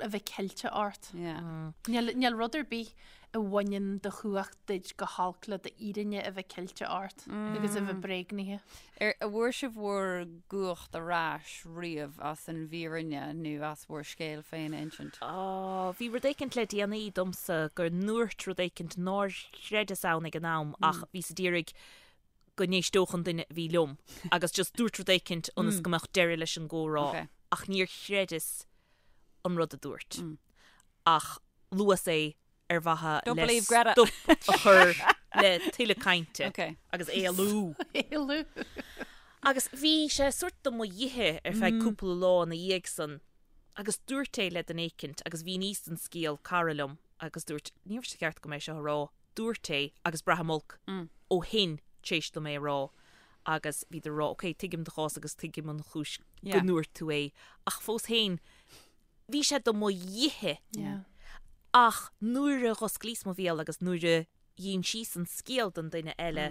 a bheith ceilte ort. Níl rud ar bith a bhaineann do chumhacht duit chomh holc le d'fhírinne a bheith ceilte ort agus a bheith bréagnaithe. Ar an bhfuair sibh bhur gcumhacht ar ais riamh as an bhfírinne nó as bhur scéal féin a insint? Á, bhí rud éicint le déanaí domsa go ndúirt rud éicint nár chreideas ann ag an am ach bhíos a d'iarraidh go n-éisteodh an duine a bhí liom agus just dúirt rud éicint ionas go mbeadh deireadh leis an gcomhrá ach níor chreideas an rud a dúirt ach luas é ar mhaithe le stop a chur le tuilleadh cainte agus éalú. Éalú. Agus bhí sé sórt do mo dhithe ar feadh cúpla lá ina dhiaidh san agus dúirt é le duine éicint agus mhíníos an scéal cara liom agus dúirt, ní raibh sé ceart agam é seo a rá, dúirt é agus braithim olc ó shin tar éis dom é a rá agus bhíodar a rá, ok, tuigim do chás agus tuigim an chúis go ndúirt tú é ach fós féin bhí sé do mo dhithe ach nuair a dh'osclaíos mo bhéal agus nuair a dh'insíos an scéal don duine eile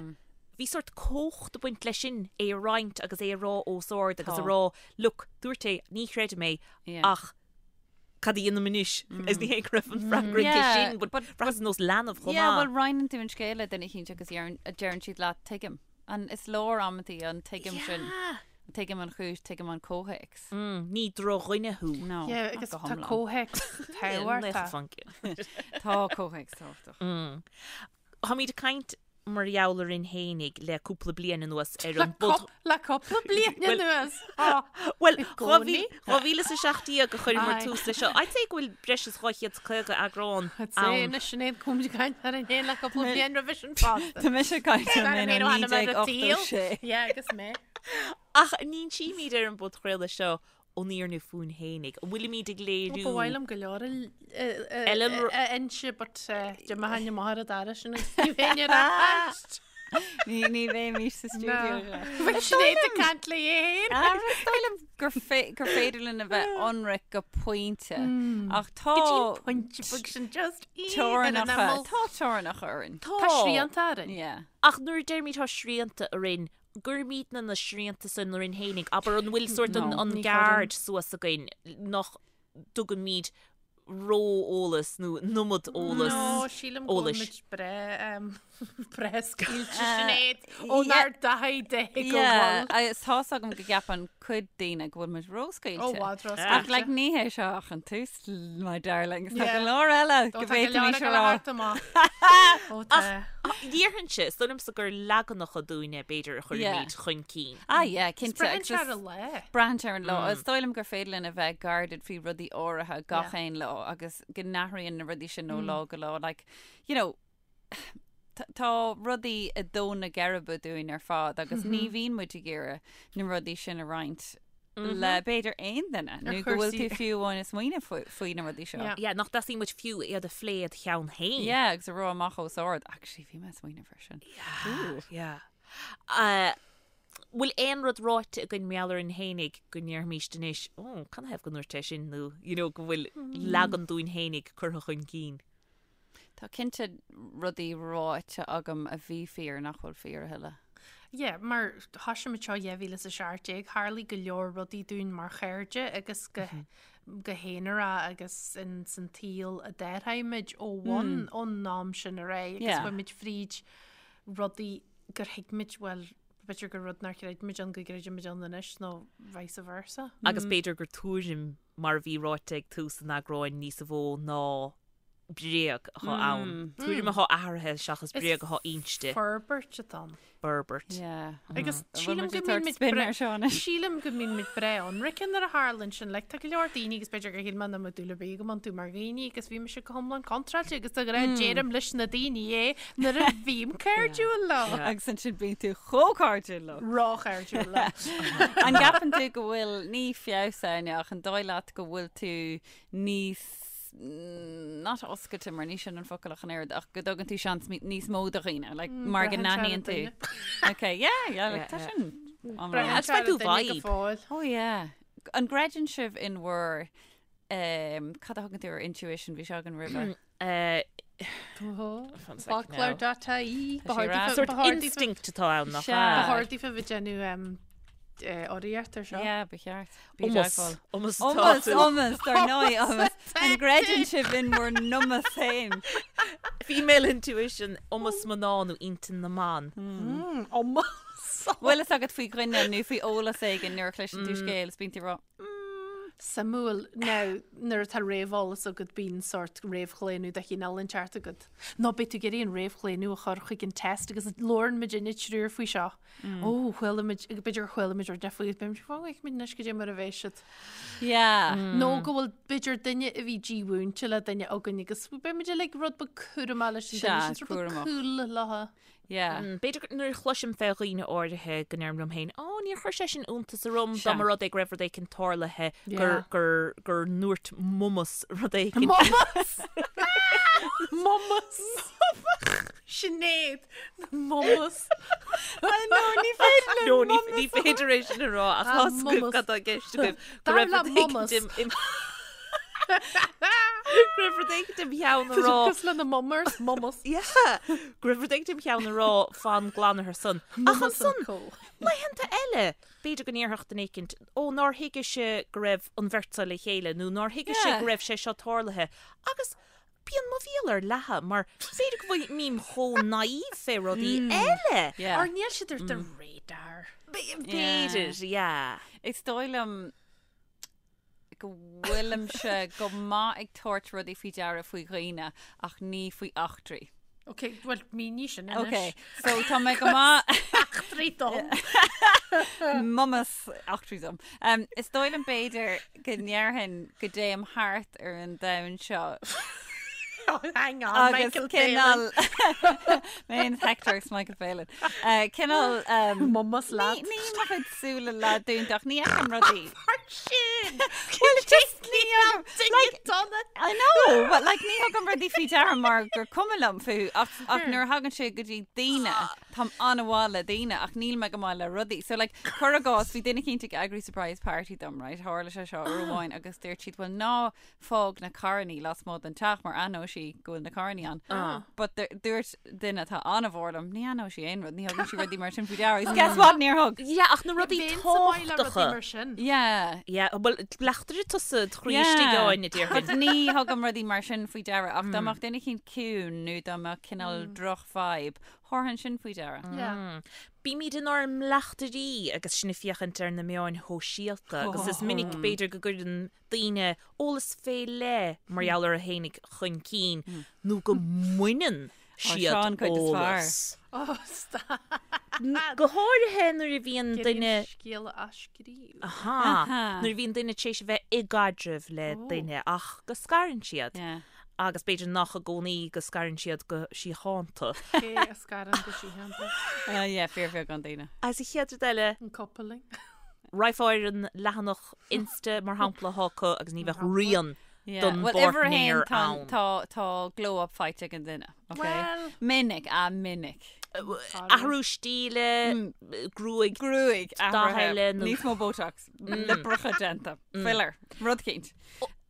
bhí sórt cumhacht ag baint leis sin é a roinnt agus é a rá os ard agus a rá, look, dúirt é, ní chreidim é ach cad a dhéanaim anois? Is ní hé go raibh an freagra aici sin, but bhraitheas ar nós leanbh chomh Yeah, maith. bhuel, roinneann tú an scéal le duine eicínt agus deireann siad leat, tuigim. An is leor amantaí an tuigim sin. Tuigim an chúis, tuigim an comhthéacs. Ní drochdhuine thú. No, Yeah, not agus go tá hiomlán. comhthéacs tábhachtach. Tá comhthéacs tábhachtach. Táimid ag caint mar gheall orainn fhéinig le cúpla bliain anuas ar an bpod. Le cúpla bliain anuas? Bhuel, 2017 a chuireamar tús leis seo. I'd say go bhfuil breis is 250 eagrán ann. I'd say anois Sinéad go bhfuilimid ag caint orainn féin le cúpla bliain roimhe sin fosta. Tá mise ag caint orainn féin ó 1986. Yeah, agus mé. Ach an insímid ar an bpodchraoladh seo an fhírinne fúinn fhéinig. An bhfuilimid ag léiriú. Ba mhaith liom go leor a inse but d'imigh amach ar an dara sin agus ní bheinn ar ais. Ní ní bheimis sa stiúideo seo. Bheadh Sinéad ag caint léi féin. Is dóigh liom gur gur féidir linn a bheith ionraic go pointe ach tá Go dtí an pointe beag sin just teorainneacha tá teorainneacha orainn. Tá srianta orainn. Yeah. Ach nuair a deirimid tá srianta orainn, gcuirimidne na srianta san orainn fhéinig, abair an bhfuil sórt an, an guard suas againn nach dtugaimid. ró-eolas nó an iomad eolas. No, sílim go bhfuil eolais. muid breá breá scaoilte Sinéad ónár dtaithí de go Yeah, bhfuil. agus tá's agam go gceapann cuid daoine go bhfuil muid róscaoilte. Ó, i bhfad Ach like róscaoilte. ní hé seo ach an tús, my darlings. Tá Yeah. go leor eile Ó, go tá go leor bhféadfaimis ag a dul a rá. theacht amach. Ó, tá. Déarfainnse, is dóigh liomsa gur leaganacha dúinne b'fhéidir a chuirimid chun cinn. Ah yeah, cinnte. Braitheann agus sé ar is- an lá. Braitheann sé ar an lá. Is dóigh liom gur féidir linn a bheith guarded faoi rudaí áirithe gach Yeah. aon lá agus go n-athraíonn na rudaí sin ó lá go lá. Like, you know, tá tá rudaí ag dó na geirbe dúinn ar fad agus ní bhíonn muid ag iarraidh na rudaí sin a roinnt le b'fhéidir aon duine nó go bhfuil tú cúrsaí- fiú amháin ag smaoineamh faoi faoi na rudaí seo. Yeah. Yeah, nach dteastaíonn uait fiú iad a phlé id cheann féin. Yeah, agus a rá amach os ard. Actually, bhí mé ag smaoineamh air sin. Yeah. Uh, Bhfuil aon rud ráite againn mar gheall orainn fhéinig go ndéarfaimíst anois, ó, canathaobh go ndúirt é sin nó, you know, go bhfuil leagan dúinn fhéinig curtha chun cinn? Tá cinnte rudaí ráite agam a bhí fíor nach bhfuil fíor a thuilleadh. Yeah, mar thosaigh muid seo 2017, tharlaigh go leor rudaí dúinn mar chairde agus go go haonarach agus in san tsaol a d'athraigh muid ó bhun ón am sin ar aghaidh agus Yeah. chuaigh muid fríd rudaí gur thuig muid, bhuel, b'fhéidir gur rud nár chreid muid ann go gcreideann muid ann anois nó vice versa. Agus b'fhéidir gur tuairim mar a bhí ráite ag tús an eagráin níosa mhó ná bréag atá ann. Tuairim atá athraithe seachas bréag atá inste. Forbairt atá ann. Forbairt. Yeah. Agus Bhfuil sílim muid go ag mbíonn tabhairt muid spin bre- ar seo anois? Sílim go mbíonn muid breá ionraic nuair a tharlaíonn sin. Like, tá go leor daoine agus b'fhéidir gur shíl mé nach mbeadh dúil ar bith agam iontu mar dhaoine agus bhí mise go hiomlán contráilte agus de ghnáth deirim leis na daoine é nuair a bhím cairdiúil leo. Agus ansin bíonn tú chomh cairdiúil leo. Róchairdiúil leo. An gceapann tú go bhfuil ní feabhas ann ach an dóigh leat go bhfuil tú níos not oscailte mar ní sin an focal ach an oiread ach go dtugann tú seans níos mó do dhaoine like, mar go braitheann sé ar an n-aithníonn tú. duine. Okay, yeah, yeah, like, tá Yeah, sin iomlán. Braitheann That's sé ar my an duine go vibe. fóill. Oh yeah. An gcreideann sibh in bhur um, cad a thugann tú ar intuition bhí sé againn roimhe? Uh, Foclóir dot ie. Tá sé rá. Sort instinct atá ann nach Sea. ea? Ba chóir daofa bheith ag déanamh urraíocht ar seo. Yeah, ba cheart. Bí Iomas. teagmháil. Iomas atá Iomas, tú. iomas, dar ndóigh, iomas. An gcreideann sibh in bhur n-iomas féin? Female intuition, iomas mná nó intinn na mban. Iomas. Bhfuil fhios agat faoi dhuine nó faoi eolas éigin nuair a chloiseann tú scéal is bíonn tú ag rá, Suimiúil. Now, nuair atá réamheolas agat bíonn sórt réamhchlaonadh de chineál inteacht agat. Nó beidh tú ag iarraidh an réamhchlaonadh a chur chuig an test agus labhrann muid inne triúr faoi seo. Ó, chuala muid, b'fhéidir gur chuala muid rud faoi, beidh muid, fágfaidh muid anois go dtí mar a bheidh siad. Yeah. Nó go bhfuil b'fhéidir duine a bhí dímhúinte le duine againn agus beidh muid uilig rud beag cúramach leis an Sea, duine sin, rud beag cúramach. cool leo. Yeah. B'fhéidir gur- nuair a chloisim fé dhaoine áirithe go ndeirim liom féin, Ó, níor chuir sé sin iontas orm dá Sea. mba rud é go raibh rud éicint tarlaithe, gur, Yeah. gur, gur ndúirt m'iomas rud éicint. M'iomas! M'iomas! Sinéad! M'iomas! No, ní féidir No, ní, ní féidir é sin a rá ach Ah, tá a fhios agaibh m'iomas. cad tá i gceist agaibh. Go Dar raibh le rud éicint m'iomas. im- im- Go raibh rud éicint im cheann a rá. Cosúil le na mummers, m'iomas. Yeah. Go raibh rud éicint im cheann a rá fan glan ar son. Ach M'iomas ansan, and co. laethanta eile, b'fhéidir go ndéarfadh duine éicint, ó nár thuigise go raibh an bheirt seo le chéile nó nár thuigise Yeah. go raibh sé seo tarlaithe. Agus bíonn mo bhéal ar leathadh mar b'fhéidir go bhfuil mím chomh naive fé rudaí eile. Yeah. Or níl siad ar do radar. B'fhéidir, yeah. Is dóigh liom go bhfuilimse go maith ag tabhairt rudaí faoi deara faoi dhaoine ach ní faoi eachtraí. Ok, well, mínigh sin anois. Ok, so tá mé go maith Eachtraí dom. M'iomas eachtraí dom. Um, is dóigh liom b'fhéidir go ndéarfainn go dtéim thart ar an domhan seo Oh, hang on, agus Michael cineál Palin. Mé féin Hector agus Michael Palin. Uh, cineál um, M'iomas leat. Ní ní mo chuid súile leathdúnta ach ní fheicim rudaí. Sin! Well, just ní thugaim- Like, dona. I know, but like ní thugaim rudaí faoi deara mar gur cuma liom fúthu ach, ach nuair a thagann sé go dtí daoine. Táim an-mhaith le daoine ach níl mé go maith le rudaí. So like, cuir i gcás, bhí duine eicínt ag eagrú surprise party dom, right? Tharla sé seo uair amháin agus dúirt siad, well ná fág na carrannaí lasmuigh den teach mar aithneoidh sí go bhfuil na carrannaí ann. Ah. But dúirt duine atá an-mhór liom, ní aithneoidh sí aon rud, ní thugann sí rudaí mar sin faoi deara. Agus guess what, níor thug. Yeah, ach na rudaí tábhachtacha. mar sin. Yeah. Yeah, well, bleachtaire tusa do chroí istigh againn, a déarfainn. But ní thugaim rudaí mar sin faoi deara ach dá mbeadh duine eicínt ciúin nó dá mbeadh cineál droch vibe, thabharfainn sin faoi deara. Yeah. Bímid inár mbleachtairí agus sinn ag féachaint ar na meáin shóisialta agus is minic b'fhéidir go gcuireann daoine eolas fé leith mar gheall orthu fhéinig chun cinn nó go mbaineann siad Seo an cuid is fearr. eolas. Oh, stop. Go háirithe nuair a bhíonn duine. Scéal a athscríobh. Aha. Nuair a bhíonn duine tar éis a bheith i gcaidreamh le duine ach go scarann siad. Yeah. Agus b'fhéidir nach i gcónaí go scarann siad go síochánta. Cé a scarann go síochánta? Ah yeah, fíorbheagán daoine. Agus an chéad rud eile. An coupling. Raghfá ar an leathanach Insta mar shampla atá acu agus ní bheadh rian don Well, uimhir a haon, bpáirtnéir tá, ann. tá, tá glow up faighte ag an duine, ok? Well. Minic, ah minic. Athrú stíle, gruaig, Gruaig, dath athraithe, eile nó- níos mó Botox, liobracha déanta, filler, rud eicínt.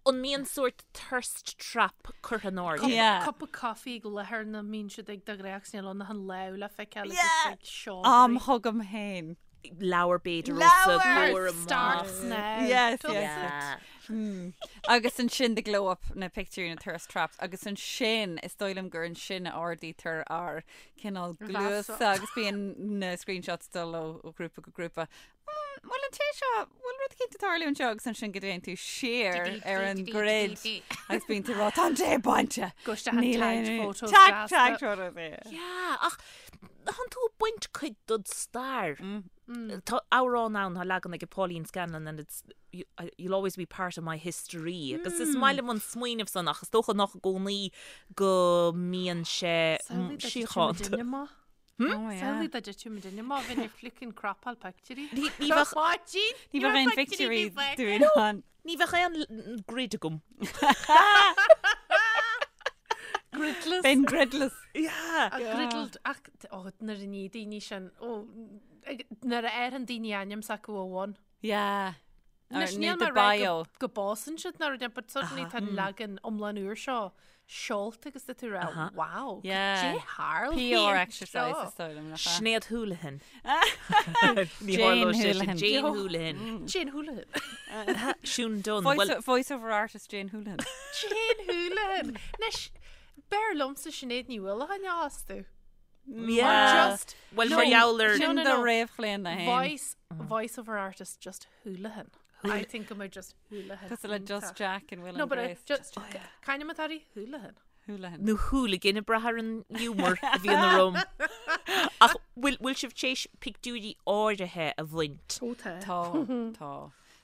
An mbíonn sórt thirst trap curtha in airde? Yeah. Cup of coffee ag láthair na mbíonn siad ag de ghnáth agus níl ann ach an lámh le feiceáil agus Yeah. ag seodra. Am chugam féin. Leabhar b'fhéidir os a Leabhar! gcomhair amach. Starts now. Yes, Does yes. it? Mm. Agus ansin the glow up na pictiúirí na thirst traps agus ansin is dóigh liom gur ansin a ardaítear ár cineál cluasa agus bíonn na screenshots dul ó ó ghrúpa go grúpa. Mm, Bhfuil an té seo, bhfuil rud eicínt ag tarlú anseo agus ansin go dtéann tú siar ar an grid agus bíonn tú ag rá tá an té bainte. Go isteach an Níl tagged aon- photos Tag, gasta. tag photos, yeah. Yeah, ach thánn tú ag baint cuid dod stair. Tá amhrán ann, tá leagan ag Pauline Scanlon and it's you, you'll always be part of my history. Agus is maith liom an smaoineamh san ach is dócha nach i gcónaí go mbíonn sé Samhlaigh dá dtitfeadh síochánta. muidinne amach. Oh, yeah. Samhlaigh dá dtitfeadh muidinne amach, bheinn ag flickin' cropáil pictiúirí. Ní ní bheadh Máirtín! Ní bheadh aon pictiúirí dúinn ann. ní bheadh aon l- grid agam. Gridless. Bheinn gridless. Yeah. A griddled ach ó nuair a ní daoine sin ó ag- nuair a fhaigheann daoine ainm s'acu ó bhun. Yeah. Anois Or níl nó mé the ag rá bio. go go bpósann siad ná rud but suddenly tá an leagan iomlán úr seo seolta agus tá tú ag rá wow, Yeah. cad é tharla PR exercise is dóigh liom, nach ea? Sinéad Houlihan. Ní Jane tharlódh sé sin. Houlihan. Jane Houlihan. Jane Houlihan. Siún Dunne. Voice, Well, voice over artist Jane Houlihan. Jane Houlihan. Anois, b'fhearr liomsa Sinéad Ní Uallacháin a fhostú. yeah. Just Well, No. mar gheall ar No, Sin no, do no. réamhchlaonadh féin. Voice, voice over artist just Houlihan. I think go mbeadh just Houlihan. Cosúil le Just Jack in Will No, and but I Grace. just Kind of Matari Houlihan. Houlihan. nó hooligan ag brath ar an humour a bhíonn orm. Ach bhfuil bhfuil sibh tar éis pictiúirí áirithe a bhaint? Ó tá. Tá, tá.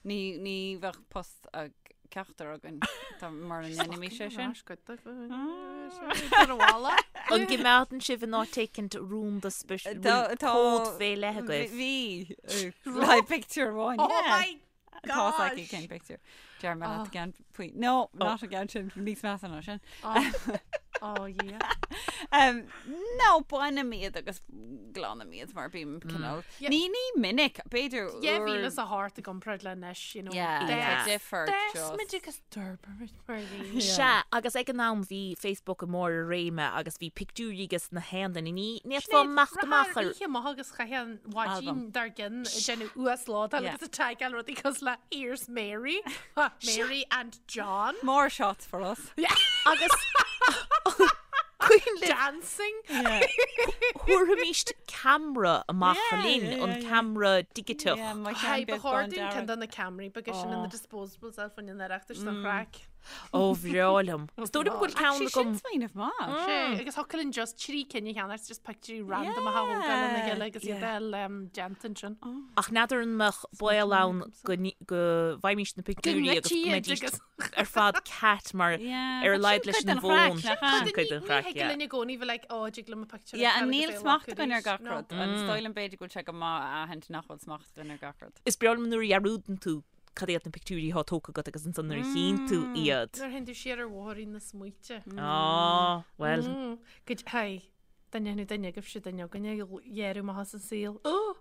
Ní, ní bheadh post ag ceachtar againn tá mar a ndéanaimís sé sin. An gcoimeádann sibh in áit éicint rúnda spis Tá- tá- cód fé leith agaibh? Bhí le picture amháin. Oh yeah. my Tá gosh! aici cén picture. Deir mé leat ceann faoi. No, not an ceann sin, níos measa ná sin. Oh yeah. Um, no, bainim iad agus glanaim iad mar bím cineál. Yeah. Ní ní minic, b'fhéidir Yeah, uair- bhí le a heart i gcomparáid le anois, you know. Yeah, Yeah. tá difear Des just. muid agus d'fhorbair mar bhí. Sea, agus ag an am bhí Facebook i mbarr a réime agus bhí pictiúirí ages na haon duine. Ní fhéadfá imeacht amach ar Oíche amach agus chaith an mhaidin Album. dár gcionn ag déanamh uaslódáil Yeah. agus ag tagáil rudaí cosúil le Here's Mary, Mary and John. More shots for us. agus cuimhin libh Dancing. Yeah. thabharfaimis ceamara amach Yeah, linn, yeah, an yeah. ceamara digiteach. Yeah, my Hi, ceann ba beag chóir bán dúinn ceann dearg. de na ceamaraí beaga sin na disposables a bhain an Oireachtais don chraic. Ó bhreá liom. Is dóigh liom go bhfuil ceann Actually, sin agam. smaoineamh maith. Sé, agus thiocfadh linn just trí cinn a cheannacht, just pictiúirí random a thógáil lena chéile agus iad a fháil déanta ansin. Ach n'fheadar an mbeadh baol ann go ní- go bhfaighimís na pictiúirí agus go ngoidtí iad mbeidís agus- ar fad cat mar Yeah, ar a but laghad sin leis cuid an den chraic, bhfón. nach ea? Sin cuid den Ní chraic, thig yeah. linn i gcónaí bheith like, ó, dtig liom a pictiúr a Yeah, fheiceáil and agus níl é a smacht ghlacadh againn ar arís. gach No. rud. An dóigh liom b'fhéidir go bhfuil sé go maith a aithint nach bhfuil smacht againn ar gach rud. Is breá liom nuair a dhearúdann tú cad iad na pictiúirí atá tógtha agat agus ansan nuair a chíonn tú iad. Nuair a théann tú siar ar bhóithrín na smaointe. Á, bhuel. Go, hi. Dá ndéanfadh duine agaibhse duine againne a ghearradh amach as an saol. Ó!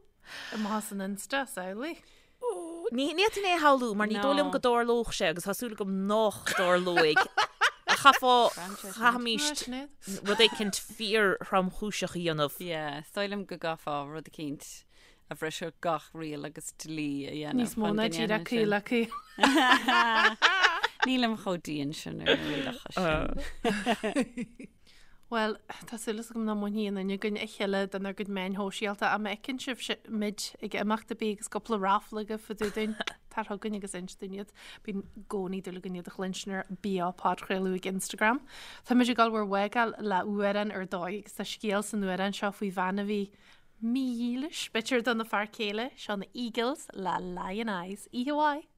Amach as an Insta, samhlaigh. Ní fhéadfainn é a shamhlú mar ní dóigh liom go dtarlódh sé agus tá súil agam nách dtarlóidh. Chaithfeá, chaithfimíst rud éicint fíor-thromchúiseach a dhéanamh. Yeah, is dóigh liom go gcaithfeá rud eicínt a bhrisfeadh gach riail agus dlí a dhéanamh. Níos mó ná díreach caol le caol. Nílim chomh dian sin ar na rialacha sin. Bhuel, tá súil agam nach mbainfidh aon duine againn a chéile denár gcuid meáin shóisialta ach má fheiceann sibh muid ag imeacht ar bith agus cúpla raffle agaibh fá dtaobh dúinn, tar chugainn agus inis dúinn iad. Bíonn i gcónaí dúil againn iad a chluinstin ar Beo Podchraoladh ag Instagram. Tá muid ag dul bhur bhfágáil le amhrán ar dóigh agus tá scéal san amhrán seo faoi bhean a bhí mídhílis, b'fhéidir, dona fear céile, seo na Eagles le Lyin' Eyes. Oíche mhaith!